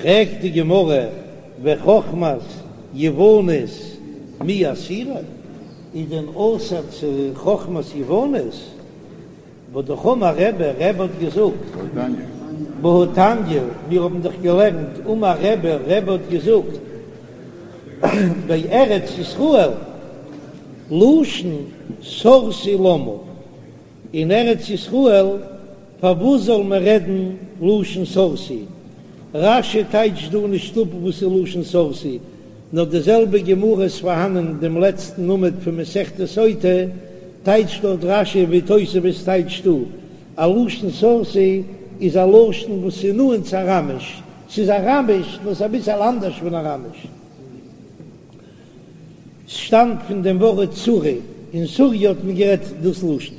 פרעגט די גמרא וחכמת יוונית מי אסירא, איז דען אסור צו חכמת יוונית? והא אמר רבי, רבי האט געזאגט, והתניא, מיר האבן דאך געלערנט, אמר רבי, רבי האט געזאגט, בארץ ישראל, לשון סורסי למה, אין ארץ ישראל פארוואס זאל מען רעדן לשון סורסי? רש"י טייטשט דא נישט אפ וואס איז לשון סורסי, נאר די זעלבע גמרא איז פארהאנען אין דעם לעצטן עמוד פון מסכת סוטה, טייטשט דארט רש"י ווי תוספות טייטשט דא, א לשון סורסי איז א לשון וואס איז נאנט צו אראמיש, ס'איז אראמיש נאר ס'איז אביסעל אנדערש פון אראמיש. ס'שטאמט פון דעם ווארט סורי, אין סוריה האט מען גערעדט דאס לשון.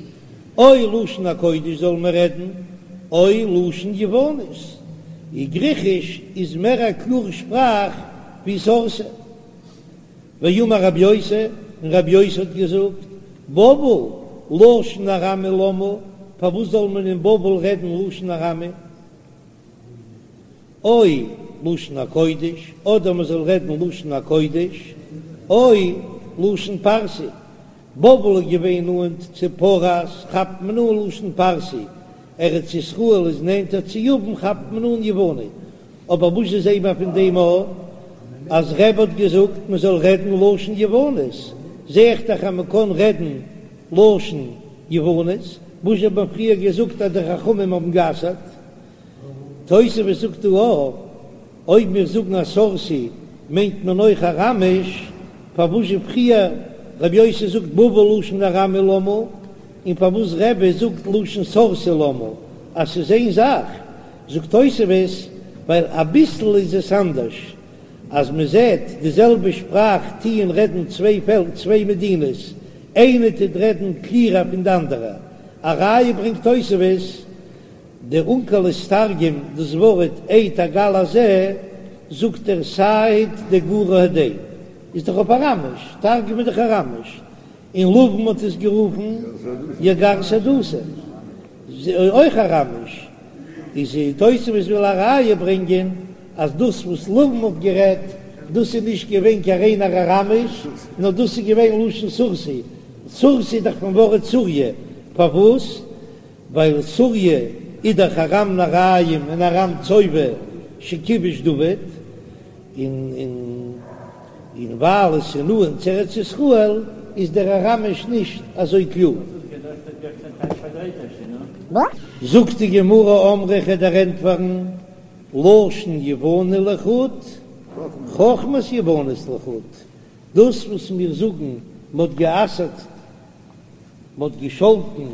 או לשון הקודש זאל מען רעדן, או לשון יוונית. און גריכיש איז מער א קלארע שפראך ווי סורסי. ואמר רבי יוסי, און רבי יוסי האט געזאגט, בבל, לשון ארמי למה, פארוואס זאל מען אין בבל רעדן לשון ארמי? או לשון הקודש, אדער מען זאל רעדן לשון הקודש, או לשון פרסי. בבל איז געווען נאנט צו פרס, כאפט מען אן לשון פרסי, ארץ ישראל איז נענטער צו יוון, כאפט מען אן יווני. אבער וואס זעט מען פון דעם א אז רבי האט געזאגט מען זאל רעדן לשון יוונית, זע איך דאך אז מען קען רעדן לשון יוונית, וואס האט מען פריער געזאגט אז די חכמים האבן גע'אסר'ט? תוספות זאגט דא אויך, אויב מיר זאגן אז סורסי מיינט מען אויך אראמיש, פארוואס זשע פריער רבי יוסי זאגט בבל לשון ארמי למה, און פארוואס רבי זאגט לשון סורסי למה, אז ס'איז איין זאך, זאגט תוספות, ווייל אביסל איז עס אנדערש, אז מען זעט די זעלבע שפראך טוען רעדן צוויי פעלקער צוויי מדינות, איינע טוט רעדן קליערער פון די אנדערע, א ראיה ברענגט תוספות, דער אונקלוס תרגם דאס ווארט עד הגל הזה, זאגט ער סהיד דגורא הדין, איז דאך אויף אראמיש, תרגום איז דאך אראמיש, און לבן האט עס גערופן יגר שהדותא, אויך אראמיש, איז תוספות וויל א ראיה ברענגען אז דאס וואס לבן האט גערעדט דאס איז נישט געווען קיין ריינער אראמיש, נאר דאס איז געווען לשון סורסי, סורסי איז דאך פון ווארט סוריה, פארוואס? ווייל סוריה איז דאך ארם נהריים און ארם צובה שכיבש דוד, און און ווייל עס איז נאנט צו ארץ ישראל איז דער אראמיש נישט אזוי קלאר. זאגט די גמרא אמרי כ'וועל דיר ענטפערן לשון יווני לחוד, חכמת יוונית לחוד, דאס וואס מיר זאגן מ'האט גע'אסר'ט מ'האט געשאלטן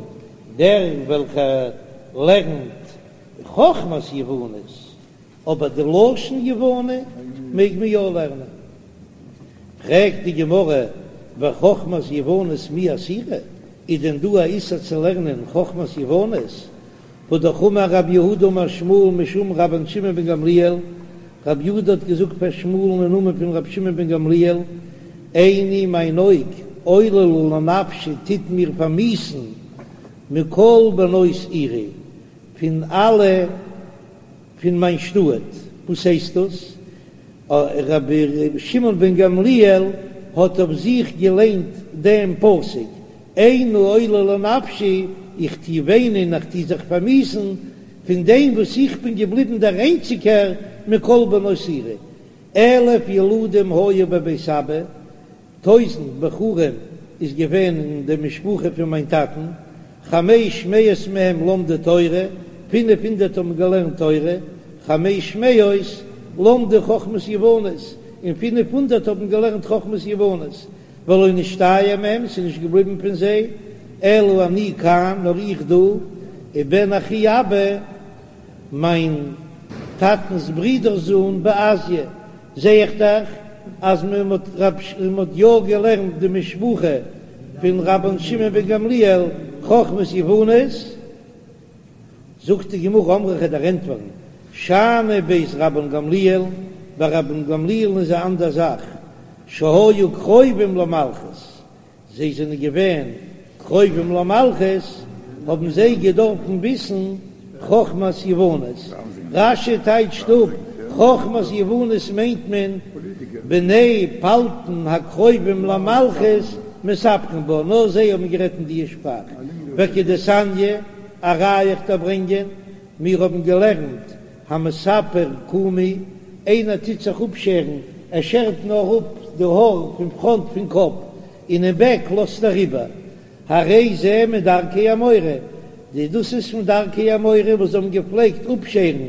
דער וועלכער לערנט חכמת יוונית, אבער די לשון יווני מעג מען יא לערנען. פרעגט די גמרא, וחכמת יוונית מי אסירא, איז דען דא א איסור צו לערנען חכמת יוונית? והא אמר רב יהודה אמר שמואל משום רבן שמעון בן גמליאל, רב יהודה האט געזאגט פאר שמואל'ן אין נאמען פון רבי שמעון בן גמליאל, עיני מיין אויג עוללה לנפשי טוט מיר פארמיאוסן מכל בנות עירי, פון אלע פון מיין שטאט, וואס הייסט דאס? רבי שמעון בן גמליאל האט אויף זיך געליינט דעם פסוק, עיני עוללה לנפשי, איך טו וויינען, איך טו זיך פארמיאוסן, פון דעם וואס איך בין געבליבן דער איינציגער מכל בנות עירי. אלף ילדים היו בבית אבא, טויזנט בחורים איז געווען אין די משפחה פון מיין טאטן, חמש מאות מהם למדו תורה, פינף הונדערט האבן געלערנט תורה, חמש מאות למדו חכמת יוונית, און פינף הונדערט האבן געלערנט חכמת יוונית, ולא נשתייר מהם, ס'איז נישט געבליבן פון זיי, אלא אני כאן, נאר איך דא, ובן אחי אבא, מיין טאטנ'ס ברודער'ס זון בעסיא, זע איך דאך אז מען האט מען האט יא געלערנט די משפחה פון רבן שמעון בן גמליאל חכמת יוונית, זאגט די גמרא אמרי כ'וועל דיר ענטפערן, שאני בית רבן גמליאל, ביי רבן גמליאל'ן איז א אנדער זאך, שהיו קרובים למלכות, זיי זענען געווען קרובים למלכות, האבן זיי געדארפן וויסן חכמת יוונית. רש"י טייטשט אפ. חכמת יוונית מיינט מען בני פלטין הקרובים למלכות מספרין בה, נאר זיי האבן גערעדט אין די שפראך, וכדתניא, א ראיה איך דיר ברענגען, מיר האבן געלערנט המספר קומי, איינער טוט זיך אפשערן, ער שערט נאר אפ די האר פון פראנט פון קאפ, און אין בעק לאזט ער איבער, הרי זה מדרכי האמורי, די דאס איז פון דרכי האמורי וואס זיי האבן געפלעגט אפשערן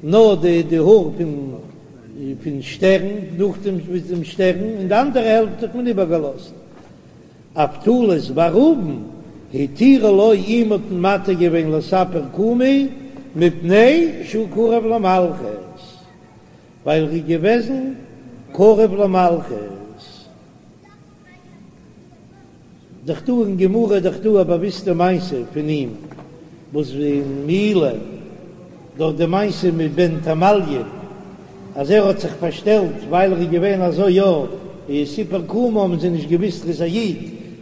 נאר די די האר פון פון שטערן, נאכדעם ביז דעם שטערן, און די אנדערע העלפט האט מען איבערגעלאזט. אבטולוס בר ראובן התירו לו אים האט מען מתיר געווען לספר קומי מפני שהוא קרוב למלכות, ווייל ער איז געוועזן קרוב למלכות. דאך דא אין גמרא דאך דא א באוויסטע מעשה פון אים וואס אין מעילה דארט די מעשה מיט בן תמליון אז ער האט זיך פארשטעלט ווייל ער איז געווען אזוי יא איז סיפר קומו האבן זיי נישט געוויסט ער איז א איד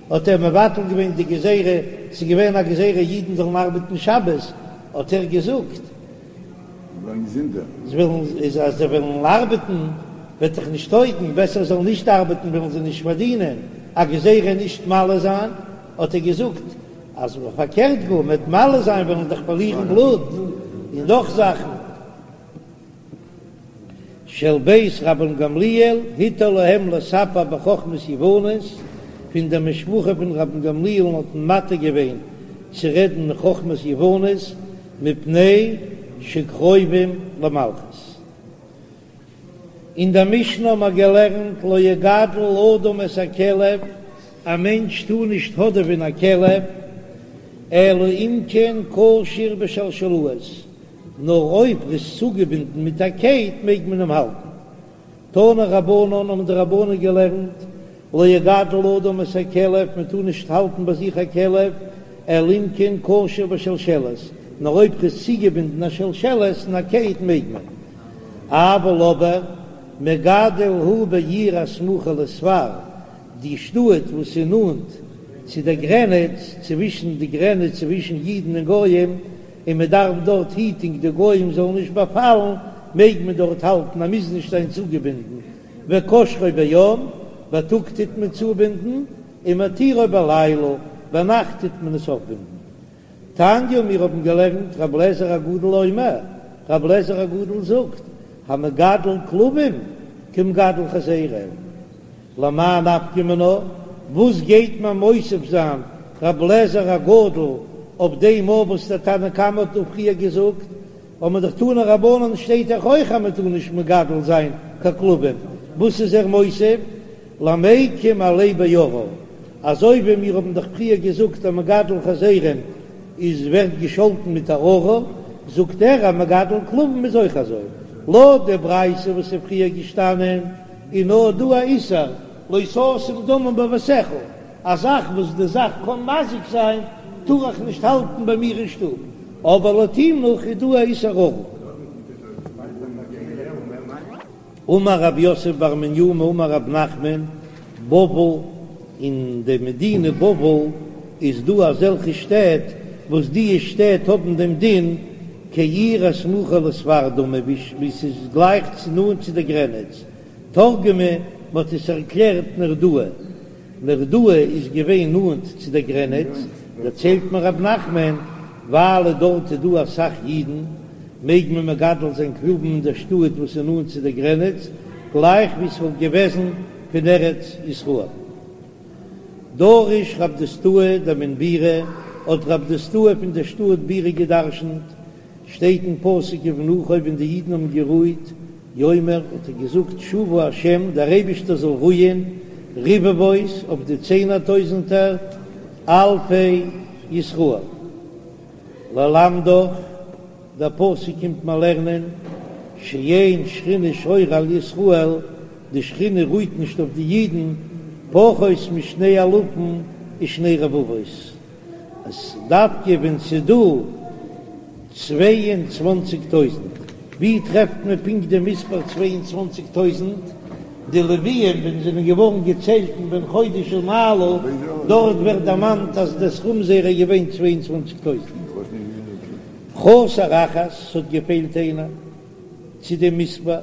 האט ער מבטל געווען די גזירה ס'איז געווען א גזירה אידן זאלן ארבעטן שבת האט ער געזאגט זיי וועלן איז אז זיי וועלן ארבעטן וועט דאך נישט טויגן, בעסער זאלן נישט ארבעטן וועלן זיי נישט פארדינען, א גזירה נישט מל זיין, האט ער געזאגט אז פארקערט גאר מ'וועט מל זיין וועלן דאך פארלירן בלוט און נאך זאכן. של בית רבן גמליאל התיר להם לספר בחכמת יוונית, פון דער משפחה פון רבן גמליאל'ן האט מען מתיר געווען צו רעדן חכמת יוונית, מפני שקרובים למלכות. אין דער משנה האבן מיר געלערנט לא יגדל אדם את הכלב, א מענטש טאר נישט האדעווען א כלב, אלא אם כן קשור בשלשלאות, נאר אויב ער איז צוגעבינדן מיט א קייט מעג מען אים האלטן. תנו רבנן האבן די רבנן געלערנט, לא יגדל אדם את הכלב, מען טאר נישט האלטן ביי זיך א כלב, אלא אם כן קשור בשלשלת, נאר אויב ס'איז צוגעבינדן א שלשלת אין א קייט מעג מען. אבל אבער, מגדל הוא בעיר הסמוכה לספר, די שטאט וואס איז נאנט צו דער גרעניץ, צווישן די גרעניץ צווישן אידן און גויים, און מען דארף דארט היטונג די גויים זאלן נישט באפאלן, מעג מען דארט האלטן, ער מוז נישט זיין צוגעבינדן, וקושרו ביום, בייטאג טוט מען צובינדן, ומתירו בלילה, ביינאכט טוט מען עס אויפבינדן. תניא, מיר האבן געלערנט, רבי אליעזר הגדול אומר, רבי אליעזר הגדול זאגט, המגדל כלבים כמגדל חזירים. למאי נפקא מינה, וואס גייט מען מוסיף זיין רבי אליעזר הגדול אויף דעם אויף וואס דער תנא קמא האט דא פריער געזאגט, האט מען דאך תנו רבנן שטייט דאך אויך אז מען טאר נישט מגדל זיין קיין כלבים, וואס איז ער מוסיף? למיקם עליה בארור, אזוי ווי מיר האבן דאך פריער געזאגט אז מגדל חזירים איז ווערט געשאלטן מיט א ארור, זאגט ער אז מגדל כלבים איז אויך אזוי, לויט די ברייתא וואס איז פריער געשטאנען איז נאר דא א איסור לא תשים דמים בביתך, א זאך וואס די זאך קען מזיק זיין טאר איך נישט האלטן ביי מיר אין שטוב, אבער לויט אים נאך איז דא א איסור ארור. אמר רב יוסף בר מניומי אמר רב נחמן, בבל, אין די מדינה בבל איז דא אזעלכע שטעט וואס די שטעט האבן דעם דין כעיר הסמוכה לספר דמי ווי ס'איז גלייך צו נאנט צו די גרעניץ, תרגמה, מ'האט עס ערקלערט נהרדעא, נהרדעא איז געווען נאנט צו דער גרעניץ, דערציילט מיר רב נחמן, ווייל דארט איז דא אסאך אידן, מעג מען מגדל זיין כלבים אין דער שטאט וואס איז נאנט צו דער גרעניץ, גלייך ווי עס וואלט געוועזן פון ארץ ישראל. דרש רב דוסתאי דמן בירי, האט רב דוסתאי פון דער שטאט בירי געדרשנט, שטייט אין פסוק ובנוחו ווען די אידן האבן גערוהט, יאמר האט ער געזאגט שובה השם דער אייבישטער זאל רוען רבבות אויף די צענער טויזענטער אלפי ישראל. ללמדך, דער פסוק קומט מיר לערנען שאין שכינה שורה על ישראל, די שכינה רוהט נישט אויף די אידן פחות משני אלפים ושני רבבות, אז דווקא ווען ס'איז דא 22 טויזענט, ווי טרעפט מען פונקט די מספר 22 טויזענט? די לוויים ווען זיי זענען געווארן געציילט אין בן חודש ומעלה, דארט ווערט דערמאנט אז די סכום זייערע איז געווען 22 טויזענט. חסר אחת, ס'האט געפעלט איינער. צו דעם מספר,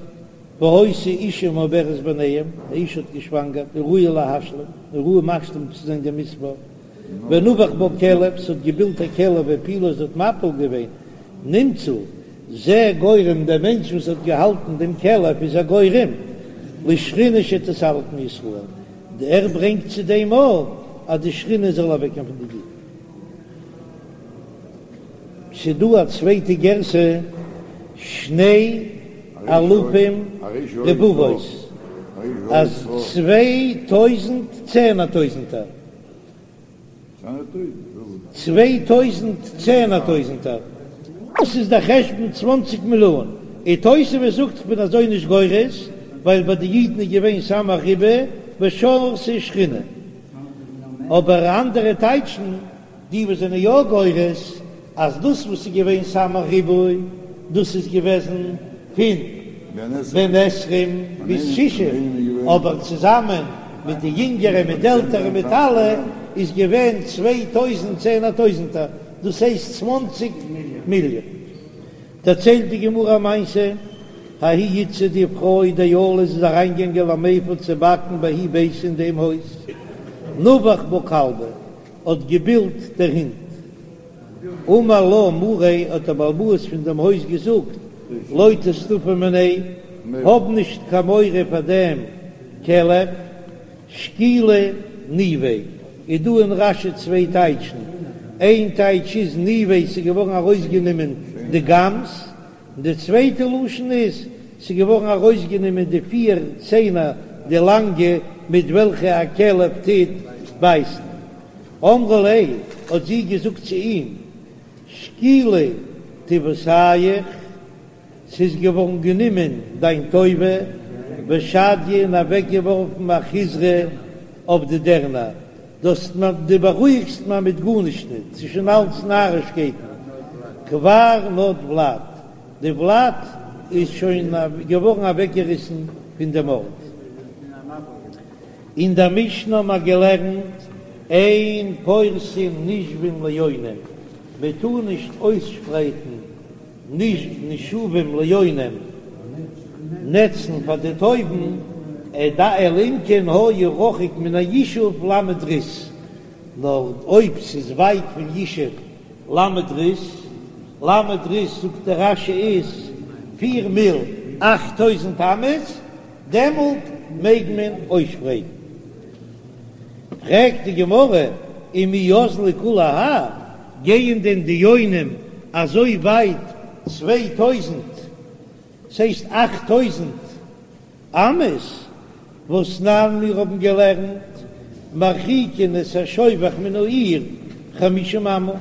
והיתה אשה מעוברת ביניהם, א אשה האט געשוואנגערט, וראויה להשלים, און ראוי משלים צו זיין דעם מספר, ונבח בה כלב, ס'האט געבילט א כלב והפילה, זי האט מפיל געווען, נמצא זה גורם, דער מענטש וואס האט געהאלטן דעם כלב איז א גורם לשכינה שתסתלק מישראל, ער ברענגט צו דעם אויך אז די שכינה זאל אוועקגיין פון די אידן. ס'דא א צווייטע גירסא, שני אלפים רבבות, אז 2000 צענער טויזנטער. 2000 צענער טויזנטער. דאס איז דער חשבון צוואנציג מיליאן. און תוספות זאגט כ'בין אזוי נישט גורס, ווייל ביי די אידן איז געווען סמך ריבוא ושרתה שכינה. אבער אנדערע טייטשן. די וואס זענען יא גורס אז דאס וואס איז געווען סמך ריבוא דאס איז געוועזן פון בן עשרים ביז שישים, אבער צוזאמען מיט די יונגערע מיט די עלטערע מיט אלע איז געווען 2000 צענער טויזענטער, דאס הייסט צוואנציג מיליאן. דערציילט די גמרא א מעשה, ההיא איתתא די פרוי דעלת איז אריינגעגאנגען למיפא צו באקן בההוא ביתא אין דעם הויז, נבח בה כלבא, האט געבילט דער הונט. אמר לה מאריה, האט דער בעל הבית פון דעם הויז געזאגט, לא תיסתפי מיניה, האב נישט קיין מורא פאר דעם כלב, שקילי ניביה, איז דא אין רש"י צוויי טייטשן, איין טייטש איז ניביה ס'איז געווארן ארויסגענומען די גאמס, און די צווייטע לשון איז, ס'איז געווארן ארויסגענומען די פיר ציינער די לאנגע מיט וועלכע א כלב טוט בייסן. אמרה ליה, האט זי געזאגט צו אים, שקילי טיבותיך, ס'איז געווארן גענומען דיין טובה, ושדייה און אוועקגעווארפן אחיזרי אויף די דערנער, דאס דו בארואיגסט מיר מיט גארנישט ניט, ס'איז שוין אלץ נארישקייטן, כבר נד ולד, די ולד איז שוין געווארן אוועקגעריסן פון דעם ארט. אין דער משנה האבן מיר געלערנט, אין פורסין נישבים ליונים, מען טאר נישט אויסשפרייטן נישבים ליונים, נעצן פאר די טויבן, אלא אם כן היה רחוק מן הישוב ל' ריס, נאר אויב ס'איז ווייט פון ישוב ל' ריס, ל' ריס זאגט דער רש"י איז פיר מיל 8000 אמות, דעמאלט מעג מען אויסשפרייטן. פרעגט די גמרא, ומי אזלי כולי האי, גייען דען די יונים אזוי ווייט 2000, ס'הייסט 8000 אמות, והתנן מיר האבן געלערנט מרחיקין את השובך מן העיר חמישים אמה,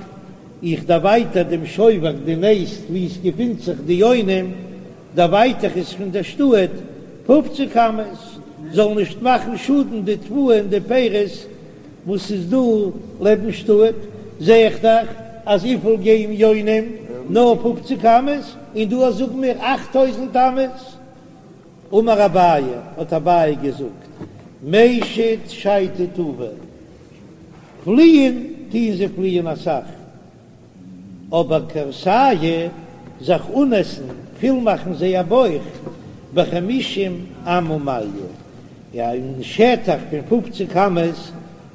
איך דערווייטער דעם שובך די נעסט וואו עס געפינט זיך די יונים, דערווייטער איך עס פון דער שטאט פופציג אמות, זאל נישט מאכן שאדן די תבואה און די פירות וואס איז דא לעבן שטאט, זע איך דאך אז וויפיל גייען יונים נאר פופציג אמות, און דא זאגן מיר 8000 אמות. אמר אביי, האט אביי געזאגט, מישט שייטי טובא, פליען טוען זיי פליען אסאך, אבער כורסייהו זיך אנעסן, פול מאכן זייער בויך, בחמישים אמה מליא, אין שטח פון פופציג אמות,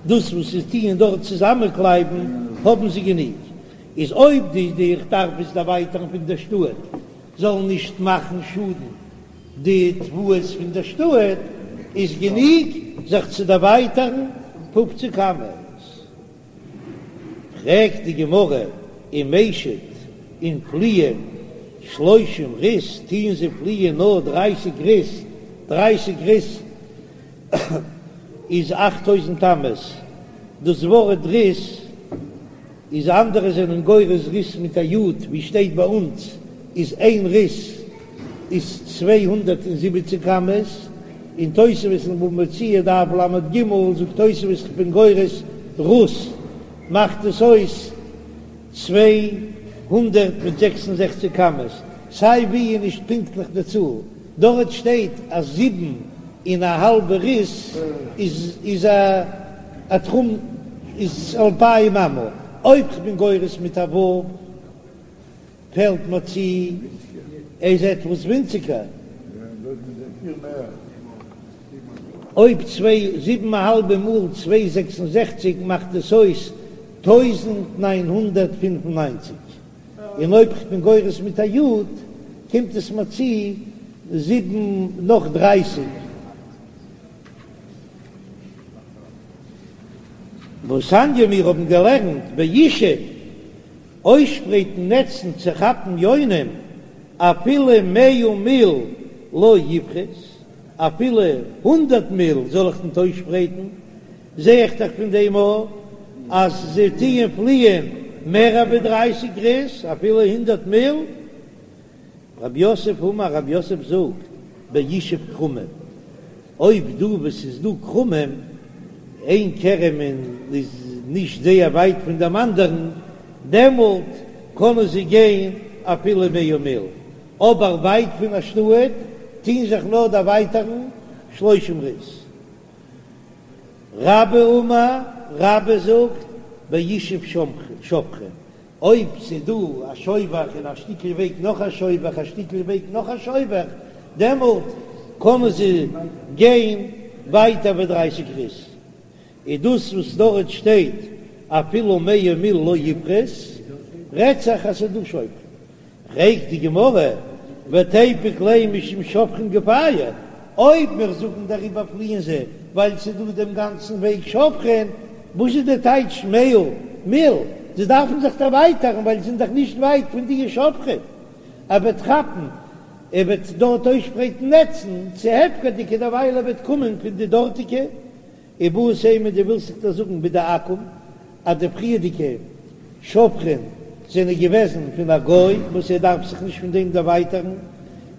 דאס וואס זיי טוען דארט צוזאמענקלייבן האבן זיי גענוג, איז אויב די די איך דארף עס דערווייטערן פון דער שטאט, זאלן נישט מאכן שאדן די תבואות פון דער שטאט, איז גענוג זיך צו דערווייטערן פופציג אמות. פרעגט די גמרא, ומישט און פליען שלושים ריס, טוען זיי פליען נאר דרייסיג ריס, דרייסיג ריס איז 8000 אמות, דאס ווארט ריס איז אנדערע זענען גורס ריס מיט א י', ווי שטייט ביי אונז איז איין ריס איז 270 אמות, אין תוספות אין בבא מציעא דף ל"ג זאגט תוספות כ'בין גורס רוס מאכט עס אויס 266 אמות, סיי ווי איז נישט פונקטליך די צאל, דארט שטייט אז זיבן און א האלבע ריס איז איז א תחום איז אלפיים אמה, אויב כ'בין גורס מיט א ו' פעלט מיר צו. איז עטוואס ווינציגער. אויב צוויי זיבן א האלבע מאל צוויי 66 מאכט עס אויס 1995, און אויב כ'בין גורס מיט א י' קומט עס מיר צו זיבן נאך דרייסיג. והתניא מיר האבן געלערנט בישוב אויסשפרייטן נעצן צו כאפן יונים אפילו מאה מיל לא יפחות, אפילו הונדרעט מיל זאל איך ניט אויסשפרייטן, זע איך דאך פון דעם אויך אז זיי טוען פליען מער ווי דרייסיג ריס, אפילו הונדרעט מיל. רב יוסף אמר, רב יוסף זאגט, בישוב כרמים, אויב דא וואו ס'איז דא כרמים, איין כרם און איז נישט זייער ווייט פון דעם אנדערן, דעמאלט קענען זיי גיין אפילו מאה מיל, אבער ווייט פון א שטאט טוהן זיך נאר דערווייטערן שלושים ריס. רבה אמר, רבה זאגט, בישוב שובכין, אויב ס'איז דא א שובך און א שטיקל וועג נאך א שובך, א שטיקל וועג נאך א שובך, דעמאלט קענען זיי גיין ווייטער ווי דרייסיג ריס. איז דאס וואס דארט שטייט אפילו מאה מיל לא יפחות, רעדט זיך אז ס'איז דא שובכין. פרעגט די גמרא, ותיפוק ליה משום שובכין גופייהו, אויב מיר זאגן דעריבער פליען זיי ווייל ס'איז דא דעם גאנצן וועג שובכין, וואס איז די טייטש מאה מיל? זיי דארפן זיך דערווייטערן ווייל זיי זענען דאך נישט ווייט פון די שובכין, ער וועט כאפן, ער וועט דארט אויסשפרייטן נעצן צו הפקר'דיגע דערווייל ער וועט קומען פון די דארטיגע איבעית אימא דו ווילסט זיך דאס זאגן בדעכו"ם אז די פריערדיגע שובכין זענען געוועזן פון א גוי וואס ער דארף זיך נישט פון דעם דערווייטערן,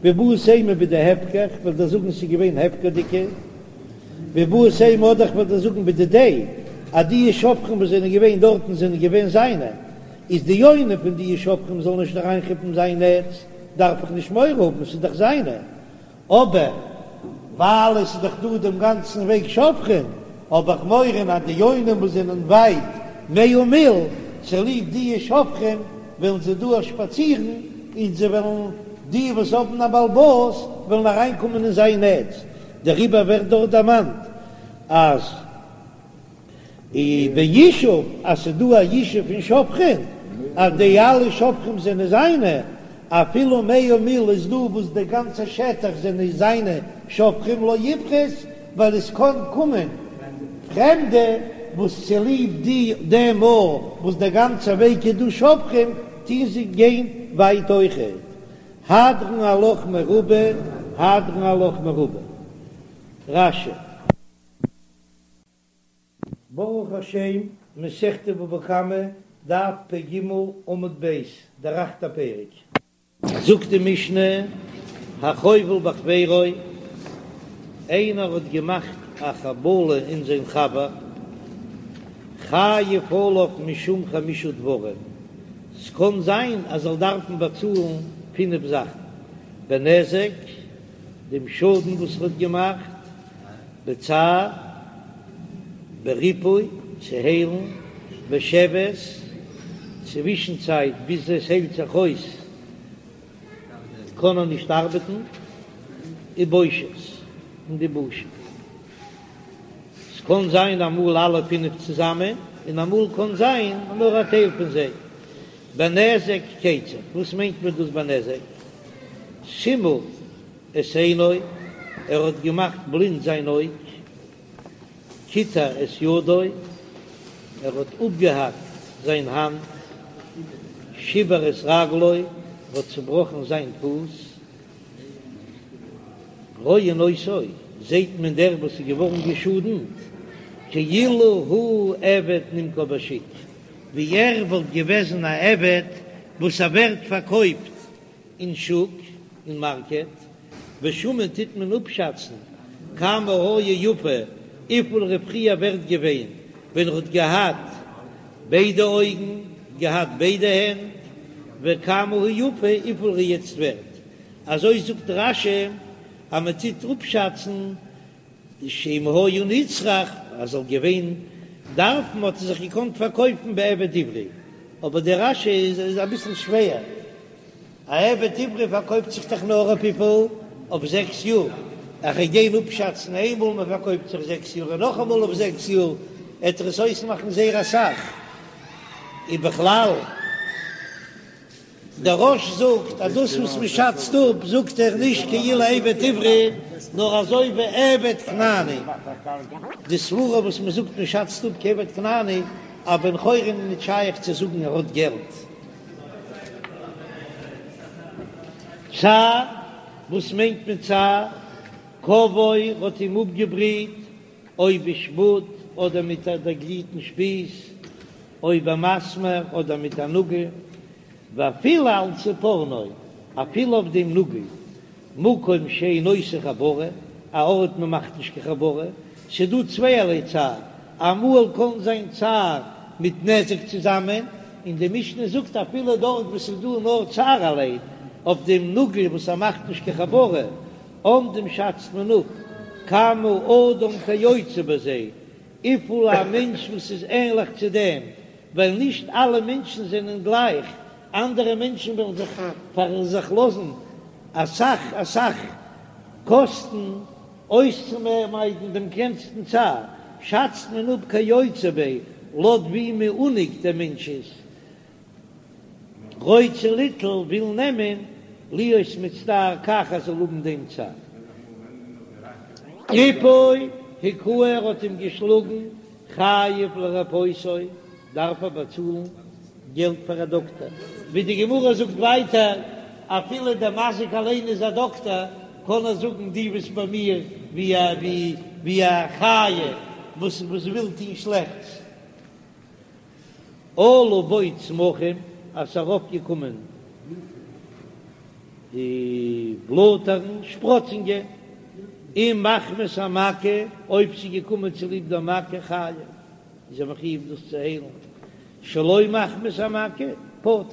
ואיבעית אימא בדהפקר כ'וועל דיר זאגן ס'איז געווען הפקר'דיגע, ואיבעית אימא אדער כ'וועל דיר זאגן בדידיה אז די שובכין וואס זענען געווען דארטן זענען געווען זיינע, איז די יונים פון די שובכין זאלן נישט אריינכאפן זיין נעץ דארף איך נישט מורא האבן ס'איז דאך זיינע, אבער ווייל עס איז דאך דא דעם גאנצן וועג שובכין, האב איך מורא אז די יונים וואס זענען ווייט מאה מיל, צוליב די שובכין וועלן זיי דא שפאצירן, און זיי וועלן, די וואס האבן א בעל הבית, וועלן אריינקומען אין זיין נעץ, דעריבער ווערט דארט דערמאנט אז. און בישוב אז ס'איז דא א ישוב פון שובכין אז די אלע שובכים זענען זיינע, אפילו מאה מיל איז דא וואס די גאנצע שטח זענען זיינע שובכים לא יפחות, ווייל עס קען קומען פרעמדע וואס צוליב די דעם מאל וואס די גאנצע וועג איז דא שובכים טוהן זיי גיין ווייט אויכעט. הדרן עלך מרובה, הדרן עלך מרובה. רש"י. ברוך השם, מסכת בבא קמא, דף פ"ג עמוד ב', דער אכטער פרק. זאגט די משנה, החובל בחבירו, איינער האט געמאכט א חבלה אין זיין חבר, חייב עליו משום חמשה דברים, ס'קען זיין אז ער זאל דארפן באצאלן פינף זאכן, בנזק, דעם שאדן וואס ער האט געמאכט, בצער, בריפוי, צו היילן, בשבת, צווישן צייט ביז עס היילט זיך אויס קען ער נישט ארבעטן, ובושת, און די בושה. ס'קען זיין אמאל אלע פינף צוזאמען, און אמאל קען זיין נאר א טייל פון זיי. בנזק כיצד, וואס מיינט מען דאס בנזק? סימא את עינו, ער האט געמאכט בלינד זיין אויג, קיטע את ידו, ער האט אפגעהאקט זיין האנט, שיבר את רגלו, ער האט צובראכן זיין פוס, רואין אותו, זעט מען דער וואס איז געווארן געשאדנט, כאילו הוא עבד נמכר בשוק, ווי ער וואלט געוועזן א עבד וואס ער ווערט פארקויפט אין שוק, אין מארקעט, ושמין טוט מען אפשאצן כמה היה יפה, וויפיל ער איז פריער ווערט געווען ווען ער האט געהאט ביידע אויגן, געהאט ביידע הענט, וכמה הוא יפה, וויפיל ער איז יעצט ווערט. אזוי זאגט רש"י אז מען טוט אפשאצן שאם היה נצרך, אז זאל געווען דארפן האט ער זיך געקאנט פארקויפן בעבד עברי, אבער דער רש"י איז אביסל שווער. א עבד עברי פארקויפט זיך דאך נאר אויף וויפיל? אויף זעקס יאר. איך וועל גיין אפשאצן איינמאל מען פארקויפט זיך זעקס יאר און נאכאמאל אויף זעקס יאר, עט ער עס אויסמאכן זייער אסאך. און בכלל. דער רא"ש זאגט אז דאס וואס מען שאצט אפ זאגט ער נישט כאילו עבד עברי נאר אזוי ווי עבד כנעני, די סברה וואס מען זאגט מען שאצט אפ כעבד כנעני, א בן חורין איז נישט שייך צו זאגן ער האט געלט. צער, וואס מיינט מען צער? כוואו האט אים אפגעבריט או בשפוד אדער מיט א דערגליטן שפיז, או במסמר אדער מיט א נאגל, ואפילו על צפורנו, אפילו אויף דעם נאגל, מקום שאין עושה חבורה, א ארט מען מאכט נישט קיין חבורה, ס'דא צווייערליי צער, אמאל קען זיין צער מיט נזק צוזאמען, און די משנה זאגט אפילו דארט וואו ס'איז דא נאר צער אליין, אויף דעם נאגל וואס ער מאכט נישט קיין חבורה, אומדים שאצט מען אפ כמה אדם כיוצא בזה, וויפיל א מענטש וואס איז ענליך צו דעם, ווייל נישט אלע מענטשן זענען גלייך, אנדערע מענטשן וועלן זיך פאר זיך לאזן אסאך אסאך קאסטן אויסצומיידן דעם קלענסטן צער, שאצט מען אפ כיוצא בו לויט ווי מעונג דער מענטש איז, רוצה ליטול וויל נעמען להיות מצטער כך ער זאל האבן דעם צער. ריפוי הכהו ער האט אים געשלאגן חייב לרפאותו דארף ער באצאלן געלט פאר א דאקטער, ווי די גמרא זאגט ווייטער אפילו דער מזיק אליין איז א דאקטער קען ער זאגן דו ביסט ביי מיר ווי א ווי א חיה וואס וואס וויל טון שלעכטס. עלו בו צמחים, אז ס'איז ארויפגעקומען די בלאטערן, שפראצונגען, אם מחמת המכה, אויב ס'איז געקומען צוליב דער מכה, חייב, איז ער מחויב דאס צו היילן, שלא מחמת המכה, פטור.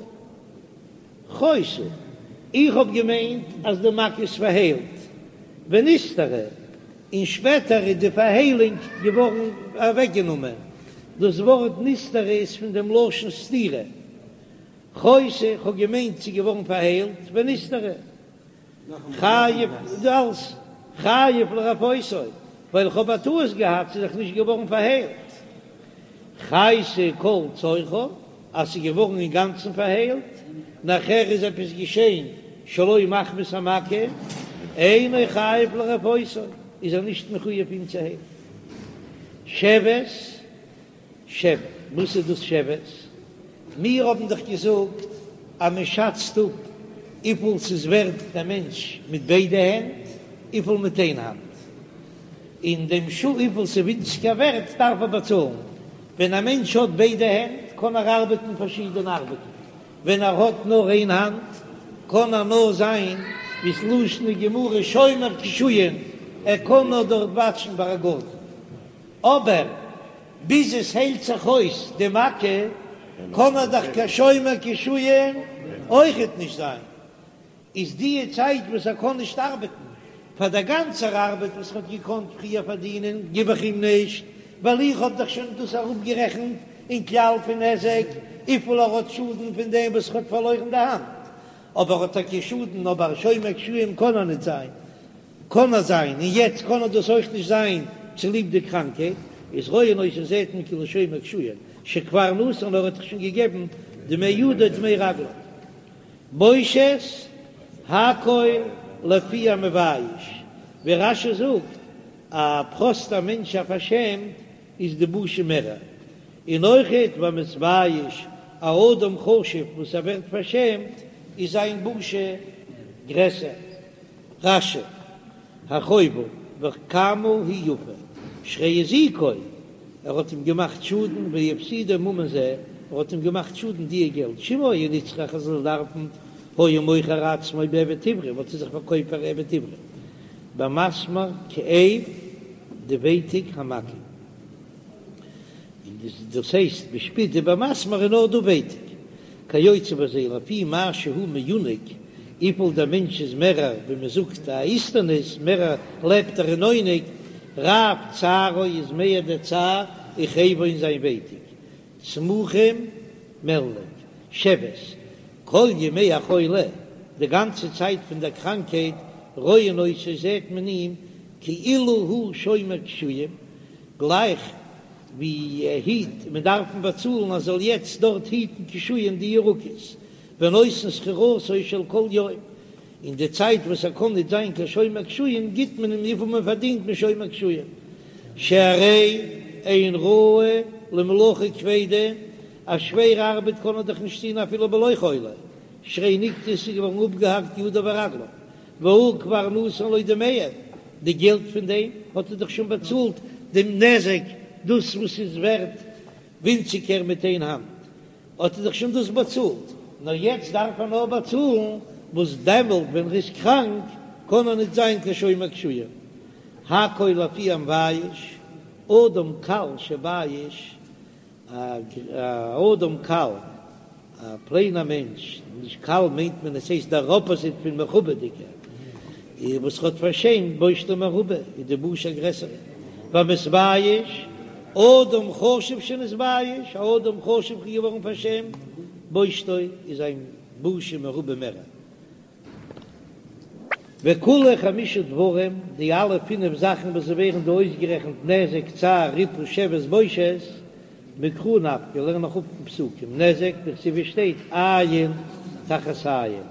חיתה, איך האב געמיינט אז די מכה איז פארהיילט, ונסתרה, און שפעטער איז די פארהיילונג געווארן אוועקגענומען, דאס ווארט נסתרה איז פון דעם לשון סתירה, חיתה, איך האב געמיינט ס'איז געווארן פארהיילט, ונסתרה, חייב, אלס חייב לרפאותו, ווייל איך האב א טעות געהאט, ס'איז דאך נישט געווארן פארהיילט. חיתה כל צורכה, אז ס'איז געווארן אינגאנצן פארהיילט, נאכער איז עפעס געשען שלא מחמת המכה, אינו חייב לרפאותו, איז ער נישט מחויב אים צו היילן. שבת, שבר, וואס איז דאס שבת? מיר האבן דאך געזאגט אז מען שאצט אפ וויפיל ס'איז ווערט דער מענטש מיט ביידע הענט, וויפיל מיט איין האנט. און דעם שיעור וויפיל ס'איז ווינציגער ווערט דארף ער באצאלן. ווען א מענטש האט ביידע הענט קען ער ארבעטן פארשידענע ארבעטן, ווען ער האט נאר איין האנט קען ער נאר זיין ווי ס'לשון הגמרא שומר קישואין, ער קען נאר דארט וואטשן ביי א גארטן. אבער ביז עס היילט זיך אויס די מכה קען ער דאך קיין שומר קישואין אויכעט נישט זיין. איז די צייט וואס ער קען נישט ארבעטן, פאר דער גאנצער ארבעט וואס ער האט געקאנט פריער פארדינען גיב איך אים נישט, ווייל איך האב דאך שוין דאס אראפגערעכנט אין כלל פון נזק וויפיל ער האט שאדן פון דעם וואס ער האט פארלוירן די האנט, אבער האט טאקע שאדן, אבער שומר קישואין קען ער נישט זיין, קען ער זיין, און יעצט קען ער דאס אויך נישט זיין צוליב די קראנקייט, איז רואין אותו זעט מען כאילו שומר קישואין שכבר נתן ער האט דאך שוין געגעבן דמי ידו דמי רגלו. בושת הכל לפי המבייש, ווי רש"י זאגט, א פראסטער מענטש א פארשעמט איז די בושה מערער, און אויכעט והמתבייש א אדם חשוב וואס ער ווערט פארשעמט איז זיין בושה גרעסער. רש"י, הרחובה וכמה היא יפה, שהרי הזיקו, ער האט אים געמאכט שאדן והפסידו ממון זה, ער האט אים געמאכט שאדן דיע געלט, שאם היה נצרך ער זאל דארפן, היה מוכר עצמו בעבד עברי, וואלט ער זיך פארקויפט פאר עבד עברי, במסמר כאב די ווייטיק המכה. און דאס הייסט בשפוד ובמסמר איז נאר דא ווייטיק, כיוצא בזה לפי מה שהוא מעונג, וויפיל דער מענטש איז מערער ווי מען זאגט א איסטניס, מערער לעבט ער אין עונג, רב צערו איז מער דער צער וכאבו און זיין ווייטיק, צמחים מעלניק, שבת, כל ימי החולי. די גאנצע צייט פון דער קראנקהייט, רואין אותו זעט מען אים כאילו הוא שומר קישואים, גלייך ווי ער היט, מען דארף אים באצאלן אז ער זאל יעצט דארט היטן קישואים די ירקות, ונותן שכירותו של כל יום, אין די צייט וואס ער קען ניט זיין קיין שומר קישואים גיט מען אים וויפיל מען פארדינט משומר קישואים, שהרי אין ראוי למלאכה כבדה, א שווערע ארבעט קען ער דאך נישט טון אפילו בלא חולי, שהרי נקטעו ס'איז געווארן אפגעהאקט ידיו ורגליו, והוא כבר נתן לו דמיהם, די געלט פון דעם האט ער דאך שוין באצאלט דעם נזק, דאס וואס איז ווערט ווינציגער מיט איין האנט, האט ער דאך שוין דאס באצאלט, נאר יעצט דארף ער נאר באצאלן וואס דעמאלט ווען ער איז קראנק קען ער ניט זיין קיין שומר קישואים. הכל לפי המבייש, אדם קל שבייש, א אדם קל, א פלעינער מענטש, נישט קל מיינט מען עס הייסט דער אפאזיט פון מכובד'יגער, וואס האט פארשעמט בושתו מרובה, איז די בושה גרעסער. והמתבייש, אדם חשוב שנתבייש, א אדם חשוב איז געווארן פארשעמט, בושתו איז זיין בושה מרובה מערער. וכולהו חמשה דברים, די אלע פינף זאכן וואס ווערן דא אויסגערעכנט נזק, צער, ריפוי, שבת, בושת, מקרא נפקא, לערן איך אפ פון פסוקים, נזק, דכתיב שטייט עין תחת עין,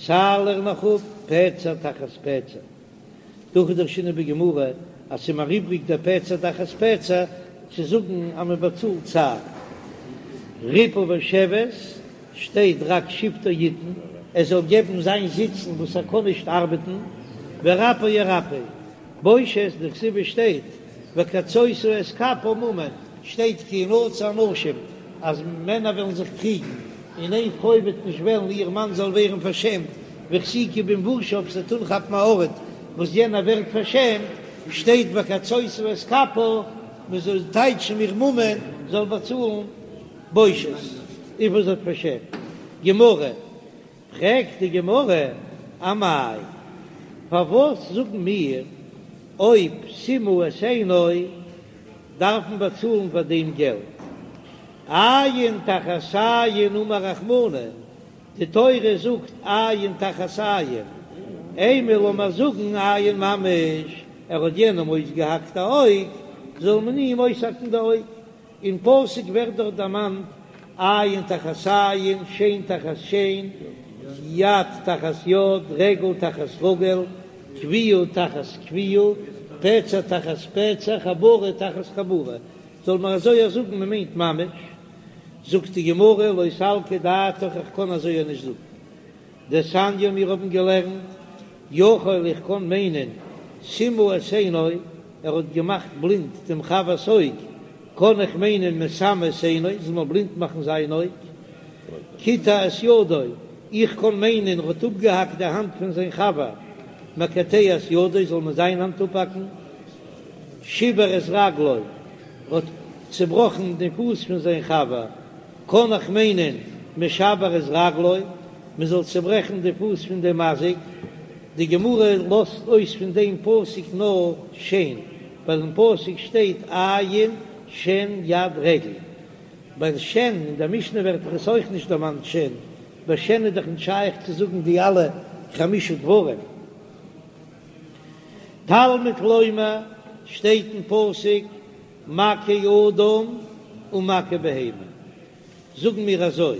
צער לערן איך אפ פצע תחת פצע. דהכי דרשינן בגמרא אז ס'איז מיר איבריג דער פצע תחת פצע צו זאגן אז מען באצאלט צער. ריפוי ושבת שטייט רק שבתו יתן, ער זאל געבן זיין זיצן וואס ער קען נישט ארבעטן, ורפא ירפא. בושת דכתיב שטייט וקצות את כפה ממון, שטייט כי ינצו אנשים אז מענער וועלן זיך קריגן און איין פרוי וועט נישט וועלן איר מאן זאל ווערן פארשעמט, והחזיקה במבושיו זי וועט אנכאפן א ארט וואס יענער ווערט פארשעמט, שטייט וקצות את כפה, מען זאל טייטשן מיר ממון זאל באצאלן בושת וויפיל זי האט פארשעמט. גמרא, פרעגט די גמרא, אמאי, פארוואס זאגן מיר אויב סימא את עינו דארף מען באצאלן פאר דעם געלט? עין תחת עין אמר רחמנא, די תורה זאגט עין תחת עין, אימא לאמיר זאגן עין ממש, ער האט יענעם אויסגעהאקט א אויג, זאל מען אים אויסהאקן די אויג, אין פסוק ווערט דארט דערמאנט עין תחת עין, שן תחת שן, יד תחת יד, רגל תחת רגל, כויה תחת כויה, פצע תחת פצע, חבורה תחת חבורה, זאל מען אזוי זאגן מען מיינט ממש, זאגט די גמרא לא סלקא דעתך איך קען אזוי נישט זאגן, דתניא מיר האבן געלערנט יכול איך קען מיינען סימא את עינו ער האט געמאכט בלינד דעם חבר'ס אויג, קען איך מיינען מסמא את עינו זאל מען בלינד מאכן זיין אויג, קיטע את ידו איך קען מיינען ער האט אפגעהאקט די האנט פון זיין חבר, מקטע את ידו זאל מען זיין האנט אפהאקן. שיבר את רגלו, האט צעבראכן די פוס פון זיין חבר, קען איך מיינען משבר את רגלו, מען זאל צעברעכן די פוס פון דעם מזיק, די גמרא לאזט אויס פון דעם פסוק נאר שן, ווייל אין פסוק שטייט עין שן יד רגל, ביי שן אין דער משנה ווערט דאך עס אויך נישט דערמאנט שן, ביי שן איז דאך נישט שייך צו זאגן די אלע חמשה דברים. תלמוד לומר, שטייט אין פסוק מכה אדם ומכה בהמה, זאגן מיר אזוי,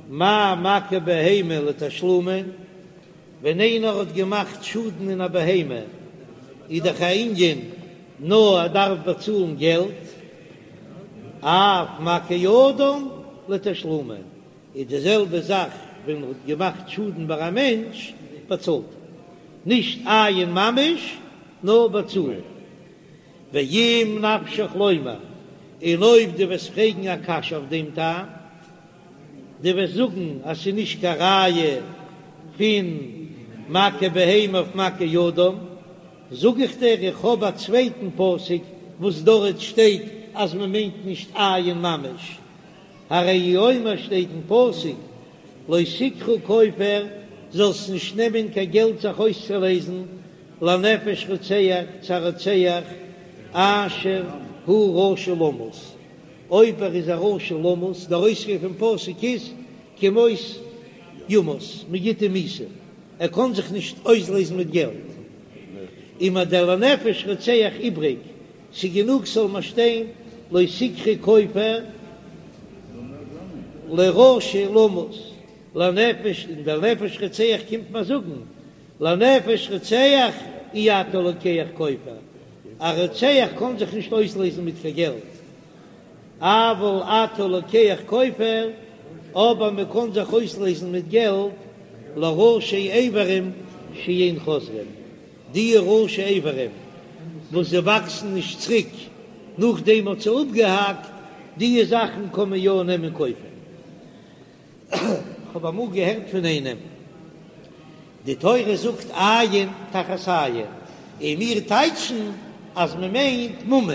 מה מכה בהמה לתשלומין, ווען איינער האט געמאכט שאדן אין א בהמה איז דאך א ענין נאר ער דארף באצאלן געלט, אף מכה אדם לתשלומין, איז די זעלבע זאך ווען מען האט געמאכט שאדן ביי א מענטש, באצאלט ער נישט אין ממש נאר באצאלן. ואם נפשך לומר, און אויב דו וועסט פרעגן א קשיא אויף דעם טעם, דו וועסט זאגן אז ס'איז נישט קיין ראיה פון מכה בהמה אויף מכה אדם, זאג איך דיר איך האב א צווייטן פסוק וואס דארט שטייט אז מען מיינט נישט אין ממש, הרי הוא אומר שטייט אין פסוק לא תקחו כופר, זאלסט נישט נעמען קיין געלט זיך אויסצולייזן, לנפש רוצח צו א רוצח אשר הוא רשע למות, אויב ער איז א רשע למות, דער אויספיר פון פסוק איז כי מות. יומת, מען גיט אים מיתה, ער קען זיך נישט אויסלעזן מיט געלט. און מיר דער לנפש רוצח איבריג, ס'גענוג ס'זאל מיר שטיין לא תקחו כופר לרשע למות, לנפש, און דער נפש רוצח קומט מיר זאגן לנפש רוצח אי אתה לוקח כופר, א רוצח קען זיך נישט אויסלעזן מיט קיין געלט, אבל אתה לוקח כופר, אבער מען קען זיך אויסלעזן מיט געלט לראשי איברים שאין חוזרים, די ראשי איברים וואס זיי וואקסן נישט צוריק נאכדעם מ'האט זיי אפגעהאקט, די זאכן קען מען יא נעמען כופר. כ'האב אמאל געהערט פון איינעם, די תורה זאגט עין תחת עין, און מיר טייטשן אז מען מיינט ממון,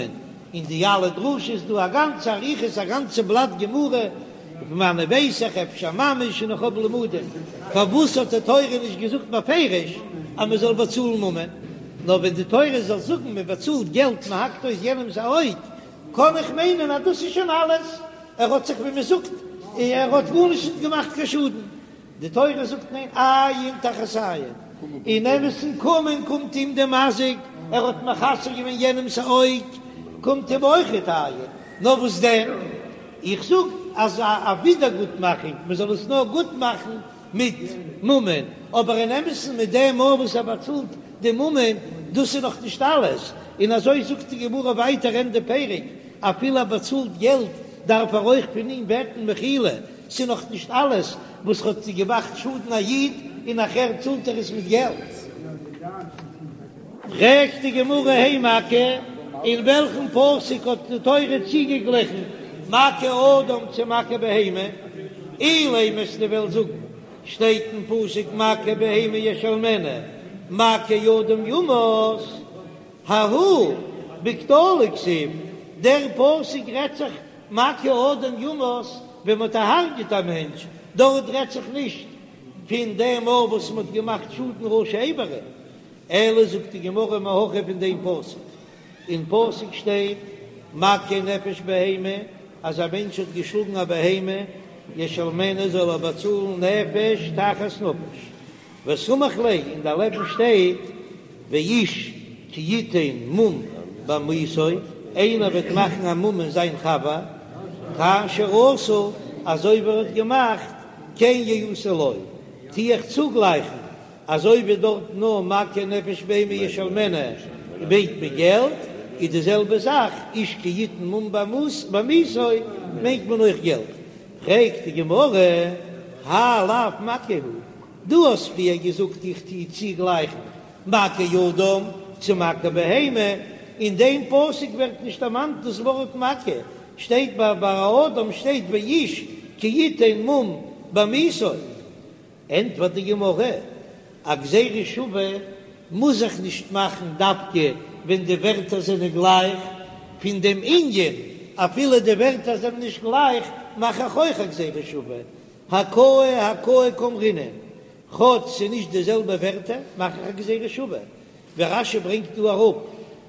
אין די אלע דרשות איז דא א גאנצע אריכות א גאנצע בלאט גמרא, פון וואנען ווייס איך אפשר ממש און איך האב לימודים, פארוואס האט די תורה נישט געזאגט בפירוש אז מען זאל באצאלן ממון, נאר ווען די תורה זאל זאגן מען באצאלט געלט מען האקט אויס יענעמס א אויג, קען איך מיינען אז דאס איז שוין אלעס, ער האט זיך ווי מען זאגט, ער האט גארנישט נישט געמאכט קיין שאדן. די תורה זאגט ניין, עין תחת עין, אין אמת'ן קומען קומט אים די מזיק, ער האט מחסר געווען יענעמ'ס אויג, קומט אים אויכעט עין, נאר וואס דען, איך זאג אז א ווידערגוטמאכונג, מען זאל עס נאר גוט מאכן מיט ממון, אבער אין אמת'ן מיט דעם מאל וואס ער באצאלט די ממון, דאס איז נאך נישט אלעס, און אזוי זאגט די גמרא ווייטער ענדע פרק, אפילו ער באצאלט געלט דארף ער אויך פון אים בעטן מחילה, ס'איז נאך נישט אלעס וואס האט געמאכט שאדן א איד און נאכער צאלט ער עס מיט געלט. פרעגט די גמרא הי מכה, אין וועלכן פסוק האט די תורה צוגעגליכן מכה אדם צו מכה בהמה? אילימא וועסטו וועלן זאגן, שטייט אין פסוק מכה בהמה ישלמנה, מכה אדם יומת, ההוא בקטלא כתיב, דער פסוק רעדט זיך מכה אדם יומת ווען מ'האט דערהרג'עט א מענטש, דארט רעדט זיך נישט פון דעם מאל וואס מ'האט געמאכט שאדן ראשי איברים, אלא זאגט די גמרא מהכא פון דעם פסוק, אין פסוק שטייט מכה נפש בהמה, אז א מענטש האט געשלאגן א בהמה, ישלמנה זאל ער באצאלן נפש תחת נפש, וסמיך ליה, און דערלעבן שטייט ואיש כי יתן מום בעמיתו, איינער וועט מאכן א מום אין זיין חבר, כאשר עשה, אזוי ווי ער האט געמאכט, כן יעשה לו, טו איך צוגלייכן, אזוי ווי דארט נאר מכה נפש בהמה ישלמנה מיינט מען געלט, איז די זעלבע זאך איש כי יתן מום בעמיתו מיינט מען אויך געלט. פרעגט די גמרא, האי לאו מכה הוא, דו האסט פריער געזאגט איך טו צוגלייכן מכה אדם צו מכה בהמה, אין דעם פסוק ווערט נישט דערמאנט דאס ווארט מכה, שטייט ביי אדם שטייט ואיש כי יתן מום בעמיתו. ענטפערט די גמרא, א גזירה שווה מוז זיך נישט מאכן דווקא ווען די ווערטער זענען גלייך, פון דעם ענין אפילו די ווערטער זענען נישט גלייך מאך איך אויך א גזירה שווה, הכאה הכאה קאמרינן, כאטש ס'איז נישט די זעלבע ווערטער מאך איך א גזירה שווה, ווי רש"י ברענגט דא אראפ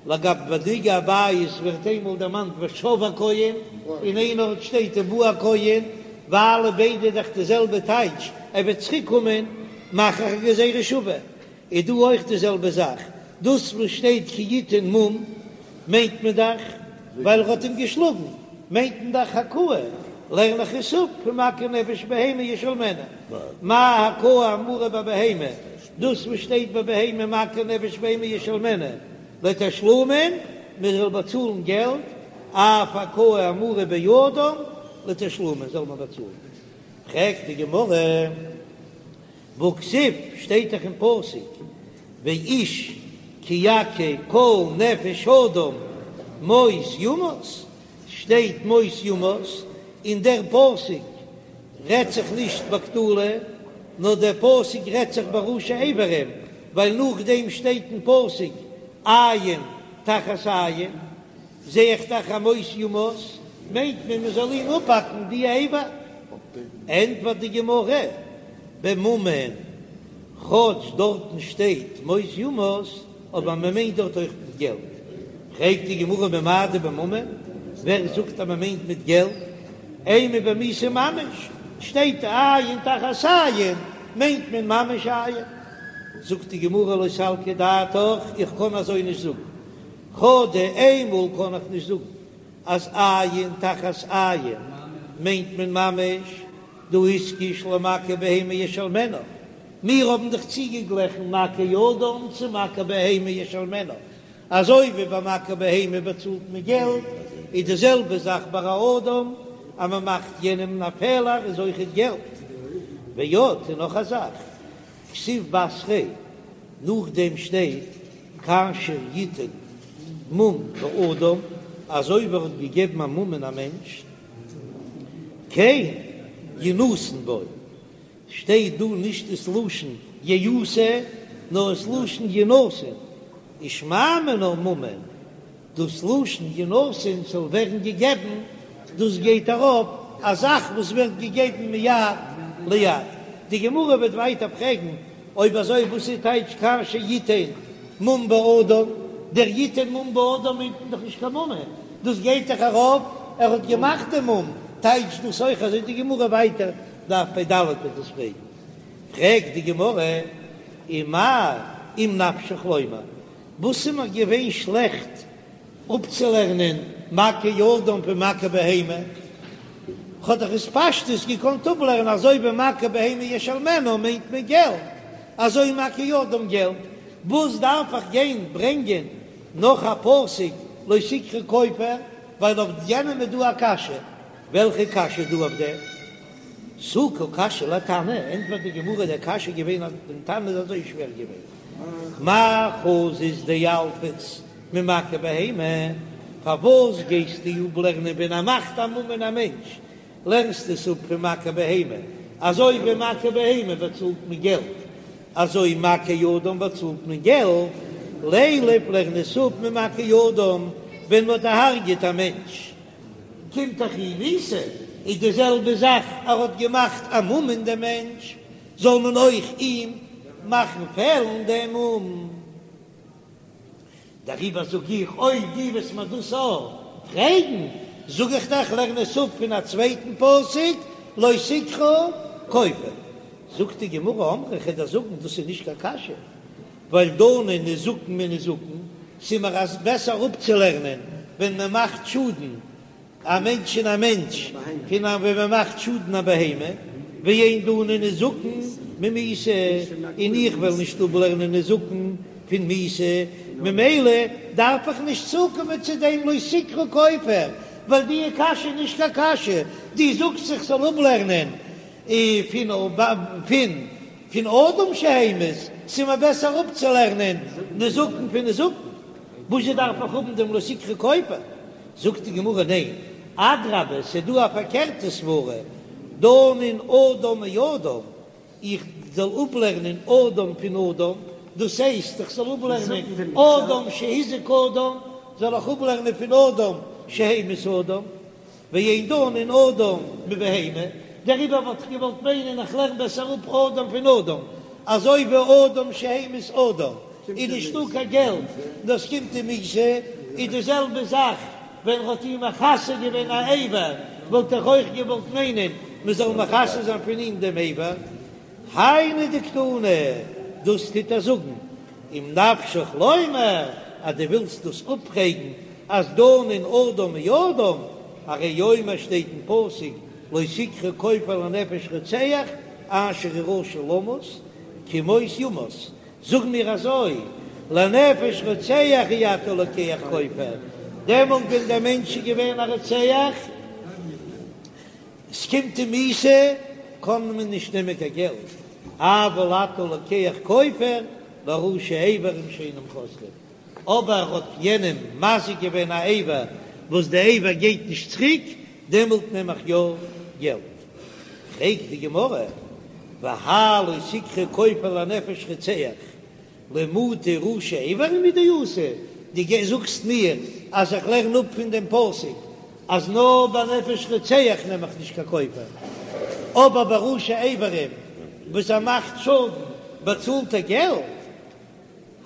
לגבי נגע הבית ווערט איינמאל דערמאנט ושב הכהן און אין איין ארט שטייט ובא הכהן, ווייל ביידע דאך די זעלבע טייטש ער וועט צוריק קומען מאך איך א גזירה שווה, איז דא אויך די זעלבע זאך, דאס וואס שטייט כי יתן מום מיינט מען דאך ווייל ער האט אים געשלאגן, מיינט מען דאך הכאה, לערן איך עס אפ פון מכה נפש בהמה ישלמנה, מה הכאה האמורה בבהמה, דאס וואס שטייט ביי בהמה מכה נפש בהמה ישלמנה לתשלומין, מען זאל באצאלן געלט, אף הכאה האמורה באדם לתשלומין זאל מען באצאלן. פרעגט די גמרא, והכתיב, שטייט דאך אין פסוק, ואיש כי יכה כל נפש אדם מות יומת, שטייט מות יומת, און דער פסוק רעדט זיך נישט בקטלא, נאר דער פסוק רעדט זיך בראשי איברים, ווייל נאכדעם שטייט אין פסוק עין תחת עין, זע איך דאך אז מות יומת מיינט מען מען זאל אים אפהאקן די אבר. ענטפערט די גמרא, בממון, כאטש דארטן שטייט מות יומת, אבער מען מיינט דארט אויך מיט געלט. פרעגט די גמרא ממאי דבממון, ווער זאגט אז מען מיינט מיט געלט? אימא במיתה ממש, שטייט עין תחת עין. מיינט מען ממש עין. זאגט די גמרא לא סלקא דעתך, איך קען אזוי נישט זאגן, חדא איינמאל קען איך נישט זאגן אז עין תחת עין מיינט מען ממש, דהא איתקש למכה בהמה ישלמנה, מיר האבן דאך צוגעגליכן מכה אדם צו מכה בהמה ישלמנה, אזוי ווי ביי מכה בהמה באצאלט מען געלט, איז די זעלבע זאך ביי א אדם, אז מען מאכט יענעם א פעלער איז אויכעט געלט. ועוד, און נאך א זאך, כתיב בתריה, נאכדעם שטייט כאשר יתן מום באדם, אזוי ווי ער האט געגעבן א מום אין א מענטש, כן ינתן בו, שטייט דא נישט דאס לשון יעשה נאר עס לשון ינתן, ושמע מינה ממון, דאס לשון ינתן זאל ווערן געגעבן, דאס גייט ארויף א זאך וואס ווערט געגעבן מיד ליד. די גמרא וועט ווייטער פרעגן, אויב אזוי וואס איז טייטש כאשר יתן מום באדם, דער יתן מום באדם מיינט מען דאך נישט קיין ממון, דאס גייט דאך ארויף ער האט געמאכט דעם מום, טייטש דאס אויך אזוי די גמרא ווייטער דף פ"ד וועט דאס פרעגן, פרעגט די גמרא, ומאי אם נפשך לומר, וואס איז מיר געווען שלעכט אפצולערנען מכה אדם פון מכה בהמה? כ'האב דאך עס פשטות געקאנט אפלערנען אזוי ווי מכה בהמה ישלמנה מיינט מען געלט, אזוי מכה אדם געלט, וואס דארף איך גיין ברענגען נאך א פסוק לא תקחו כופר, ווייל אויף יענעם איז דא א קשיא, וועלכע קשיא איז דא אויף דעם? תו קא קשיא לתנא, ענטפערט די גמרא, דער קשיא איז געווען אז דעם תנא איז אזוי שווער געווען, מאי חזית דילפת ממכה בהמה, פארוואס גייסטו אפלערנען ווען ער מאכט א מום אין א מענטש, לערנסטו עס אפ פון מכה בהמה, אזוי ווי מכה בהמה באצאלט מען געלט, אזוי מכה אדם באצאלט מען געלט, לילף לערן עס אפ ממכה אדם ווען מען האט דערהרגעט א מענטש. קומט דאך אים מיתה, איז די זעלבע זאך ער האט געמאכט א מום אין דעם מענטש, זאל מען אויך אים מאכן פעלן דעם מום. דעריבער זאג איך, אויב דו וועסט מיר דאס אויך פרעגן, זאג איך דיך, לערן עס אפ פון א צווייטן פסוק, לא תקחו כופר. זאגט די גמרא, אמרי, כ'וועל דיר זאגן, דאס איז נישט קיין קשיא, ווייל דנין נזקין מנזקין, ס'איז מיר אז בעסער אפצולערנען ווען מען מאכט שאדן א מענטש אין א מענטש פון א ווען מען מאכט שאדן א בהמה, ואין דנין נזקין ממיתה, און איך וועל נישט אפלערנען נזקין פון מיתה, ממילא דארף איך נישט צוקומען צו דעם לא תקחו כופר, ווייל די קשיא איז נישט קיין קשיא, דו זאגסט איך זאל אפלערנען פון פון פון אדם שהמית, ס'איז מיר בעסער אפצולערנען נזקין פון נזקין, וואזשע דארף איך האבן דעם לא תקחו כופר? זאגט די גמרא ניין, אדרבה ס'איז דא א פארקערטע סברה, דנין אדם מאדם, איך זאל אפלערנען אדם פון אדם, דאס הייסט איך זאל אפלערנען אדם שהזיק אדם, זאל איך אפלערנען פון אדם שהמית אדם, ואין דנין אדם מבהמה, דעריבער וואלט איך געוואלט מיינען איך לערן בעסער אפ אדם פון אדם, אזוי ווי אדם שהמית אדם איז נישטא קיין געלט נאר עס קומט אים מיתה, איז די זעלבע זאך ווען ער האט אים מכסה געווען א אבר, וואלט איך אויך געוואלט מיינען מען זאל מכסה זיין פון אים דעם אבר. היינו דקתני, דאס טוט ער זאגן, אם נפשך לומר אז דו ווילסט דאס אפפרעגן אז דנין אדם מאדם, הרי הוא אומר שטייט אין פסוק לא תקחו כופר לנפש רוצח אשר הוא רשע למות כי מות יומת, זאג מיר אזוי לנפש רוצח אי אתה לוקח כופר, דעמאלט ווען דער מענטש איז געווען א רוצח, עס קומט אים מיתה, קען מען נישט נעמען קיין געלט, אבל אתה לוקח כופר לראשי איברים שאינם חוזרים, אבער ער האט יענעם מזיק געווען א איבר וואס די איבר גייט נישט צוריק, דעמאלט נעם איך יא געלט. פרעגט די גמרא, והאי לא תקחו כופר לנפש רוצח, למעוטי ראשי איברים הוא דאתא, דו זאגסט מיר אז איך לערן אפ פון דעם פסוק אז נאר ביי נפש רוצח נעם איך נישט קיין כופר, אבער ביי ראשי איברים וואס ער מאכט שאדן באצאלט ער געלט?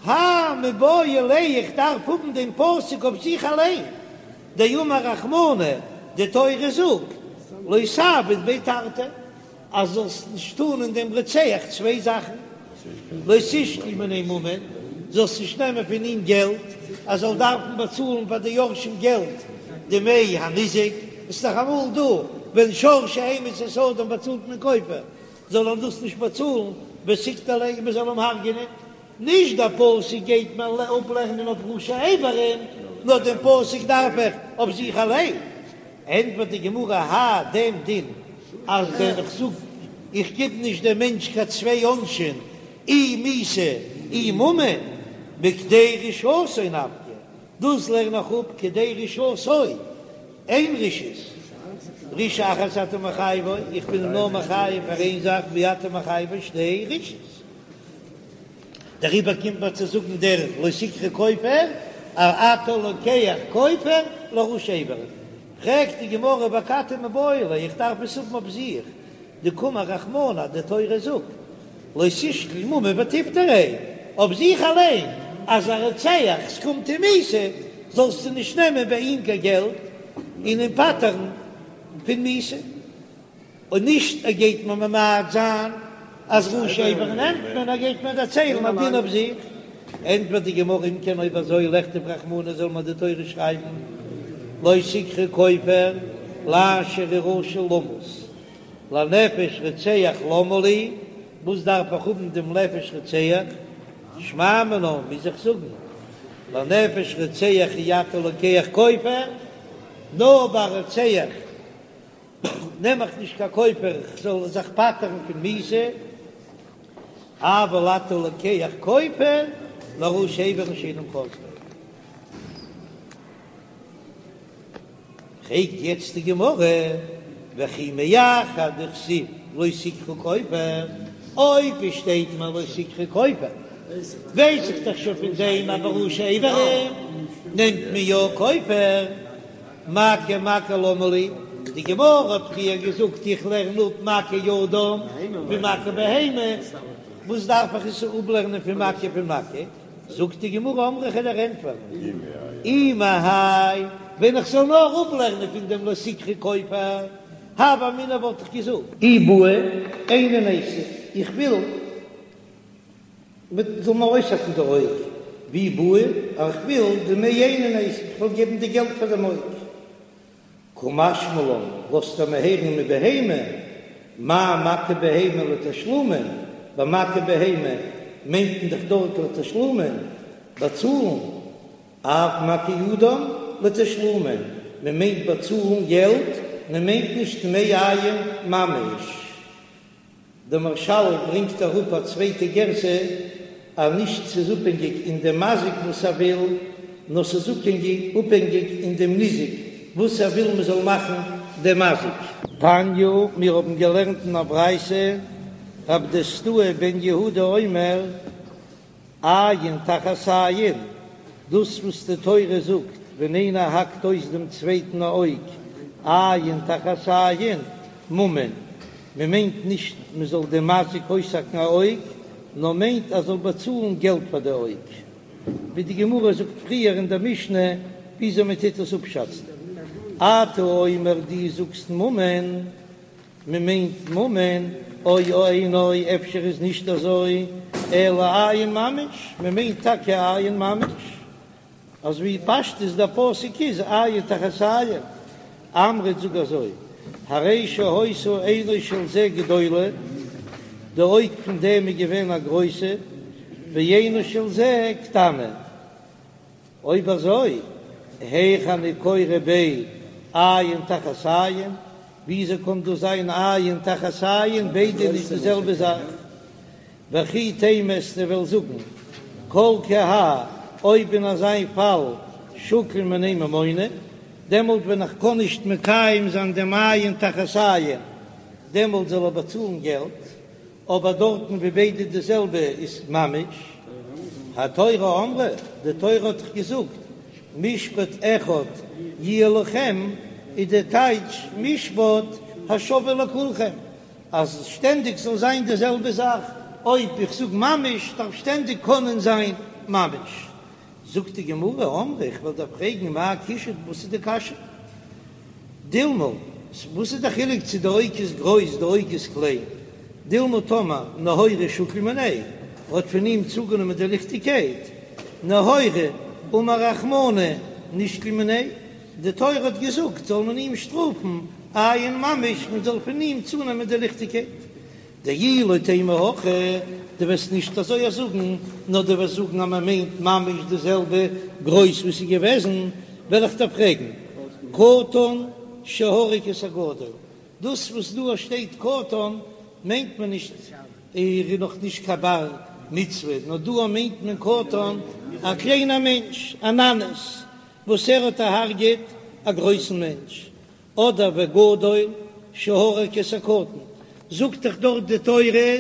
האי מיבעי ליה איך דארף האבן דעם פסוק אויף זיך אליין, דאמר רחמנא, די תורה זאגט לא תעביד ביה תרתי. אז זאלסט נישט טאן אין דעם רוצח צוויי זאכן, לא תשקול מיניה ממון, זאלסט נישט נעמען פון אים געלט, ער זאל דארפן באצאלן פאר די יורשים געלט דמי הניזק, עס איז דאך אמאל דא ווען שור שהמית את האדם באצאלט מען כופר, זאל ער דאס נישט באצאלן, ותקטליה און מען זאל אים הרג'ענען, נישט דער פסוק גייט מען אפלערנען אויף ראשי אברים, נאר דעם פסוק דארף איך אויף זיך אליין. ענטפערט די גמרא האי דעם דין אז ווען איך זאג איך גיב נישט דעם מענטש קיין צוויי עונשים אי מיתה אי ממון מכדי רשעתו נפקא, דאס לערן איך אפ כדי רשעתו, איין רשעות, רשעה אחת אתה מחייבו, איך בין אים נאר מחייב פאר איין זאך ואי אתה מחייבו שתי רשעות. דעריבער קומט מען צו זאגן דער לא תקחו כופר, אז אתה לוקח כופר לראשי אברים. פרעגט די גמרא ואכתי מיבעי ליה, איך דארף עס האבן אויף זיך, דקאמר רחמנא, די תורה זאגט לא תשקול ממון ותפטריה, אויף זיך אליין, אז א רוצח ס'קומט אים מיתה, זאלסטו נישט נעמען ביי אים קיין געלט און אים פטר'ן פון מיתה. און נישט ער גייט מיר ממעט זיין אז ראשי אברים נעמט מען, ער גייט מיר דערציילן א דין אויף זיך. ענטפערט די גמרא אם כן אויב אזוי לכתוב רחמנא זאל מיר די תורה שרייבן לא תקחו כופר לאשר הוא רשע למות לנפש רוצח למה לי, וואס דארף איך האבן דעם נפש רוצח, שמע מינה מוז איך זאגן לנפש רוצח אי אתה לוקח כופר, נאר ביי רוצח נעם איך נישט קיין כופר איך זאל זיך פטר'ן פון מיתה, אבל אתה לוקח כופר לראשי אברים שאינם חוזרים. פרעגט יעצט די גמרא, וכי מאחר דכתיב לא תקחו כופר, אויב עס שטייט מיר לא תקחו כופר, ווייס איך דאך שוין פון דעם אז בראשי אברים נעמט מען יא כופר. מכה מכה למה לי, די גמרא האט פריער געזאגט איך לערן אפ מכה אדם פון מכה בהמה, וואס דארף איך עס אפלערנען פון מכה פון מכה? זאגט די גמרא אמרי כ'וועל דיר ענטפערן אי מהאי, ווען איך זאל נאר אפלערנען פון דעם לא תקחו כופר, הוה אמינא וואלט איך געזאגט. אי בעי עינא ניתיב, איך וויל מען זאל מיר אויסהאקן די אויג, ואי בעי, איך וויל דמי עינא ניתיב, איך וויל געבן די געלט פאר דעם אויג. קא משמע לן, לאזט ער מיר הערן מבהמה, מה מכה בהמה לתשלומין, ביי מכה בהמה מיינט מען דאך דארט לתשלומין, באצאלן, אף מכה אדם לתשלומין, מען מיינט באצאלן געלט, מען מיינט נישט דמי עין ממש. דער מהרש"ל ברענגט אראפ א צווייטע גירסא אז נישט ס'איז אפהענגיק אין דעם מזיק וואס ער וויל, נאר ס'איז אפהענגיק אין דעם ניזק וואס ער וויל מ'זאל מאכן דעם מזיק. תניא, מיר האבן געלערנט אין א ברייתא, רב דוסתאי בן יהודה אומר, עין תחת עין, דאס וואס די תורה זאגט ווען איינער האקט אויס דעם צווייטן א אויג, עין תחת עין, ממון, מען מיינט נישט מען זאל דעם מזיק אויסהאקן א אויג, נאר מיינט ער זאל באצאלן געלט פאר די אויג, ווי די גמרא זאגט פריער אין דער משנה וויאזוי מען טוט עס אפשאצן. אתה אומר דו זאגסט ממון. מען מיינט ממון, או אינו, אפשר איז נישט אזוי, אלא עין ממש, מען מיינט טאקע עין ממש, אזוי ווי פשטות דער פסוק איז עין תחת עין, אמרת זאג אזוי, הרי שהיתה עינו של זה גדולה, די אויג פון דעם איז געווען א גרויסע, ועינו של זה קטנה. אויב אזוי, היאך אני קורא ביה עין תחת עין, וויאזוי קען דאס זיין עין תחת עין, ביידע נישט די זעלבע זאך? וכי תימא וועסטו וועלן זאגן כל כי האי, אויב אין אזא פאל שקיל מיניה ממונא, דעמאלט ווען איך קען נישט מקיים זיין דעם עין תחת עין, דעמאלט זאל ער באצאלן געלט. אבער דארטן ווי ביידע די זעלבע איז ממש, התורה אמרה, די תורה האט דאך געזאגט משפט אחד יהיה לכם, איז די טייטש משפט השווה לכולכם, אז שטענדיג זאל זיין די זעלבע זאך, אויב איך זאג ממש דארף שטענדיג קענען זיין ממש. זאגט די גמרא, אמרי, איך וועל דיר פרעגן מאי קושיא, וואס איז די קשיא? דילמא. וואס איז די חילוק צו די אויג איז גרויס די אויג איז קליין? דילמא טאמער נהורא שקיל מיניה האט פון אים צוגענומען די ליכטיגקייט, נהורא אמר רחמנא נשקול מיניה, די תורה האט געזאגט זאל מען אים שטראפן אין ממש מען זאל פון אים צונעמען די ליכטיגקייט. דאי לא תימא הכי, דו וועסט נישט אזוי זאגן, נאר דו וועסט זאגן אז מען מיינט ממש די זעלבע גרויס וואס איז געוועזן, וועל איך דיר פרעגן, קטן שהרג את הגדול, דאס וואס דא שטייט קטן מיינט מען נישט ער איז נאך נישט קיין בר מצוה, נאר דא מיינט מען קטן א קליינער מענטש, א ננס, וואס ער האט דערהרגעט א גרויסן מענטש, אדער וגדול שהרג את הקטן, זאגט דאך דארט די תורה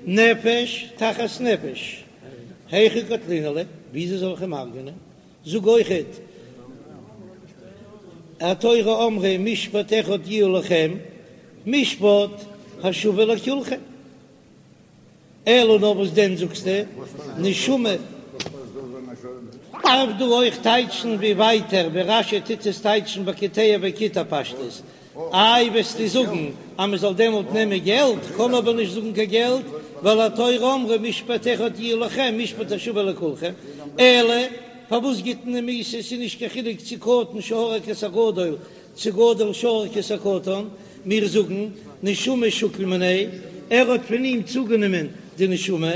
נפש תחת נפש, היכי קטלינן ליה, וויאזוי זאל איך אים הרג'נען? זאג אויכעט התורה אמרה משפט אחד יהיה לכם, משפט השווה לכולכם. אלא נאר וואס דען זאגסטו נשמה? דארף דא אויך טייטשן ווי ווייטער ווי רש"י טוט עס טייטשן בקוטע וקיטע פשטות, איי וועסטו זאגן אז מען זאל דעמאלט נעמען געלט, קען אבער נישט זאגן קיין געלט, ווייל התורה אמרה משפט אחד יהיה לכם משפט השווה לכולכם, אלא פארוואס גיט מען אים מיתה ס'איז נישט קיין חילוק צו קטן שהרג את הגדול צו גדול שהרג את הקטן, מיר זאגן, נשמה שקיל מיניה, ער האט פון אים צוגענומען די נשמה,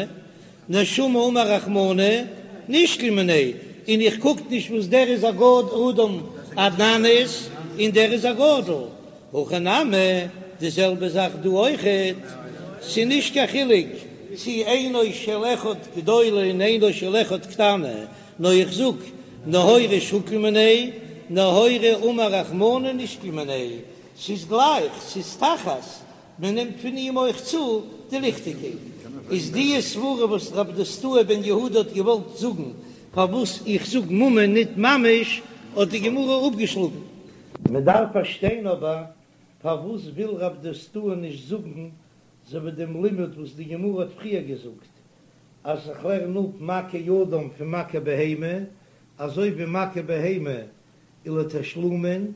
נשמה אמר רחמנא, נשקול מיניה, און איך קוק נישט וואס דער איז א גאד אדם א ננס און דער איז א גדול, הכא נמי, די זעלבע זאך דא אויכעט, ס'איז נישט קיין חילוק צו עינו של אחד גדולה און עינו של אחד קטנה, נאר איך זאג, נהורא שקיל מיניה, נהורא אמר רחמנא נשקול מיניה, ס'איז גלייך, ס'איז תחת, מען נעמט פון אים אויך צו די ליכטיגקייט. איז די סברה וואס רב דוסתאי בן יהודה האט געוואלט זאגן פארוואס איך זאג ממון ניט ממש, האט די גמרא אפגעשלאגן. מען דארף פארשטיין אבער פארוואס וויל רב דוסתאי נישט זאגן אזוי ווי דעם לימוד וואס די גמרא האט פריער געזאגט אז איך לערן אפ מכה אדם פון מכה בהמה, אזוי ווי מכה בהמה איז לתשלומין,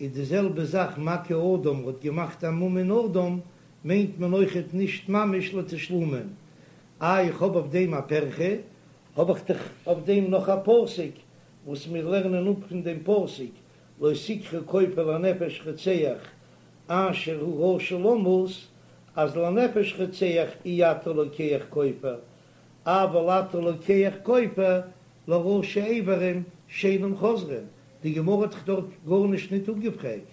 איז די זעלבע זאך מכה אדם האט געמאכט א מום אין אדם, מיינט מען אויכעט נישט ממש לתשלומין. איי איך האב אויף דעם א פירכא, האב איך דאך אויף דעם נאך א פסוק וואס מיר לערנען אפ פון דעם פסוק לא תקחו כופר לנפש רוצח אשר הוא רשע למות, אז לנפש רוצח אי אתה לוקח כופר, אבל אתה לוקח כופר לראשי אברים שאינם חוזרים, די גמרא האט דאך דארט גארנישט ניט אפגעפרעגט.